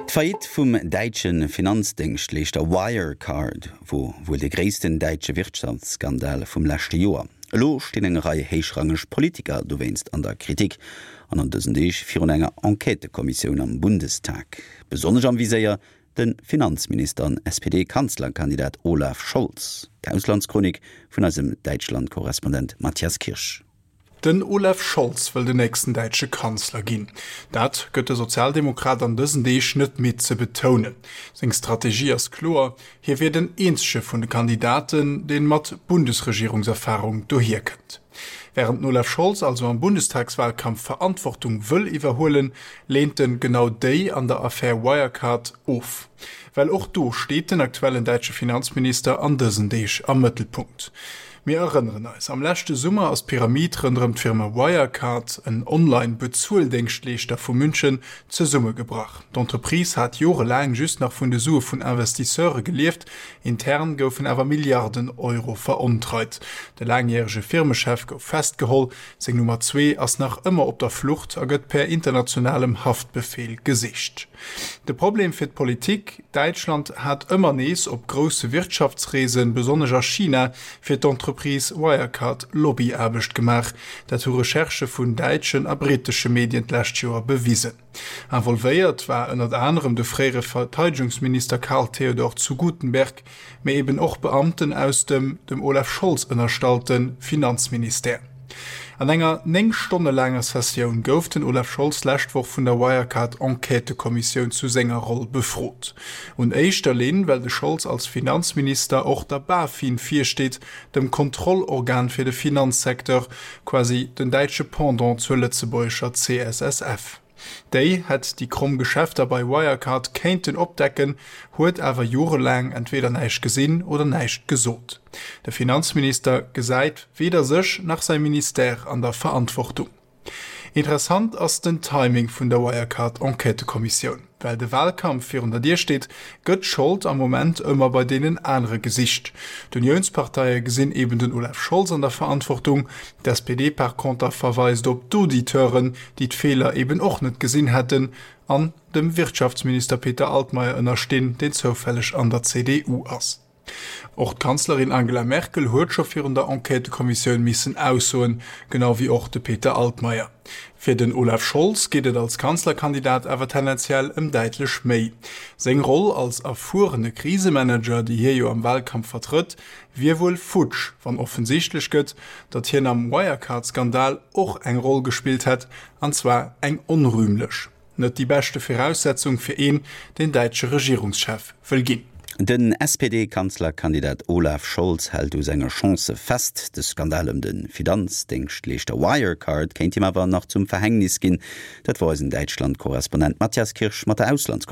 D'Faillite vum däitsche Finanzdéngschtleeschter Wirecard wor wuel de gréissten däitsche Wirtschaftsskandal vum leschte Joer. Elo stinn eng Rei héichrangeg Politiker dowéinst an der Kritik an an dësen Deeg virun enger Enquêtëkommissioun am Bundestag. Besonnesch am Viséier de Finanzminister an SPD-Kanzlerkandidat Olaf Scholz. D'Auslandschronik vun eisem Däitschland-Korrespondent Matthias Kirsch. Den Olaf Scholz wëll den nächsten däitsche Kanzler ginn. Dat gëtt de Sozialdemokrat an dësen Deeg net midd ze betounen. Seng Strategie ass kloer, Hie wier den eenzege vun de Kandidaten, deen mat Bundesregierungserfarung dohier kënnt. Wärend den Olaf Scholz also am Bundestagswalkampf Verantwortung wëll iwwerhuelen, leent en genau déi an der Affär Wirecard of. Well och do steet den aktuellen däitsche Finanzminister an dësen Deeg am Mëttelpunkt. Mir erënneren eis, Am leschte Summer ass d'Pyramid ronderëm d'Firma Wirecard, en Online-Bezueldéngschtleeschter vu München, zesummegebrach. D'Entreprise hat jorelaang just nach vun de Sue vun Investisseure gelieft, intern goufen awer Milliarden Euro verontreit. De laangjärege Firmechef gouf festgeholl, seng Nummer zwee ass nach ëmmer op der Flucht a gëtt per internationalem Haftbefeel gesicht. De Problem fir d'Politik, Däitschland hat ëmmer nees op grousse Wirtschaftsreesen, besonnesch a China, fir d'Entreprise Wirecard Lobbyaarbecht gemaach. Dat hu Recherchë vun däitschen a brittesche Medien d'lescht Joer bewisen. Involvéiert war ënnert anerem de fréiere Verteidegungsminister Karl Theodor zu Guttenberg, mee eben och Beamten aus dem dem Olaf Scholz ënnerstallte Finanzministère. An enger 9 Stonne laanger Sessioun gouf den Olaf Scholz d'lescht Woch vun der Wirecard-Enquêtëkommissioun zu senger Roll befrot. Un éischter Linn, well de Scholz als Finanzminister och der BaFin virsteet, dem Kontrollorgan fir de Finanzsecteur, quasi den däitsche Pendant zur lëtzebuergescher CSSF. Déi hätt déi kromm Geschäfter bei Wirecard kéinten opdecken, huet awer jorelaang entweder näischt gesinn oder näischt gesot. De Finanzminister gesäit weder sech nach säi Ministère an der Verantwortung. Interessant ass den Timing vun der Wirecard-Enquêtëkommissioun. Well de Wahlkampf virun der Dier steet, gëtt d'Schold am Moment ëmmer bei deenen anere gesicht. D'Uniounsparteie gesinn eben den Olaf Scholz an der Verantwortung, d'SPD par conter verweist op d'Auditeuren, déi d'Feeler eben och net gesinn hätten an dem Wirtschaftsminister Peter Altmaier ënnerstinn, deen zoufälleg an der CDU ass. Och d'Kanzlerin Angela Merkel huet scho virun der Enquêtëkommissioun missen aussoen, genau wéi och de Peter Altmaier. Fir den Olaf Scholz geet et als Kanzlerkandidat awer tendenziell ëm däitlech méi. Seng Roll als erfuerene Krisemanager, déi hie jo am Walkampf vertrëtt, wier wuel futsch, wann offensichtlech gëtt, datt hien am Wirecard-Skandal och eng Roll gespillt hätt, an zwar eng onrühmlech. Net déi beschte Viraussetzung fir een, deen däitsche Regierungschef wëll ginn. Den SPD-Kanzlerkandidat Olaf Scholz hält u senge Chancë fest. De Skandal ëm de Finanzdéngschtleeschter Wirecard kéint him awer nach zum Verhängnis ginn. Dat wor eisen Däitschland-Korrespondent Matthias Kirsch mat der Auslandschronik.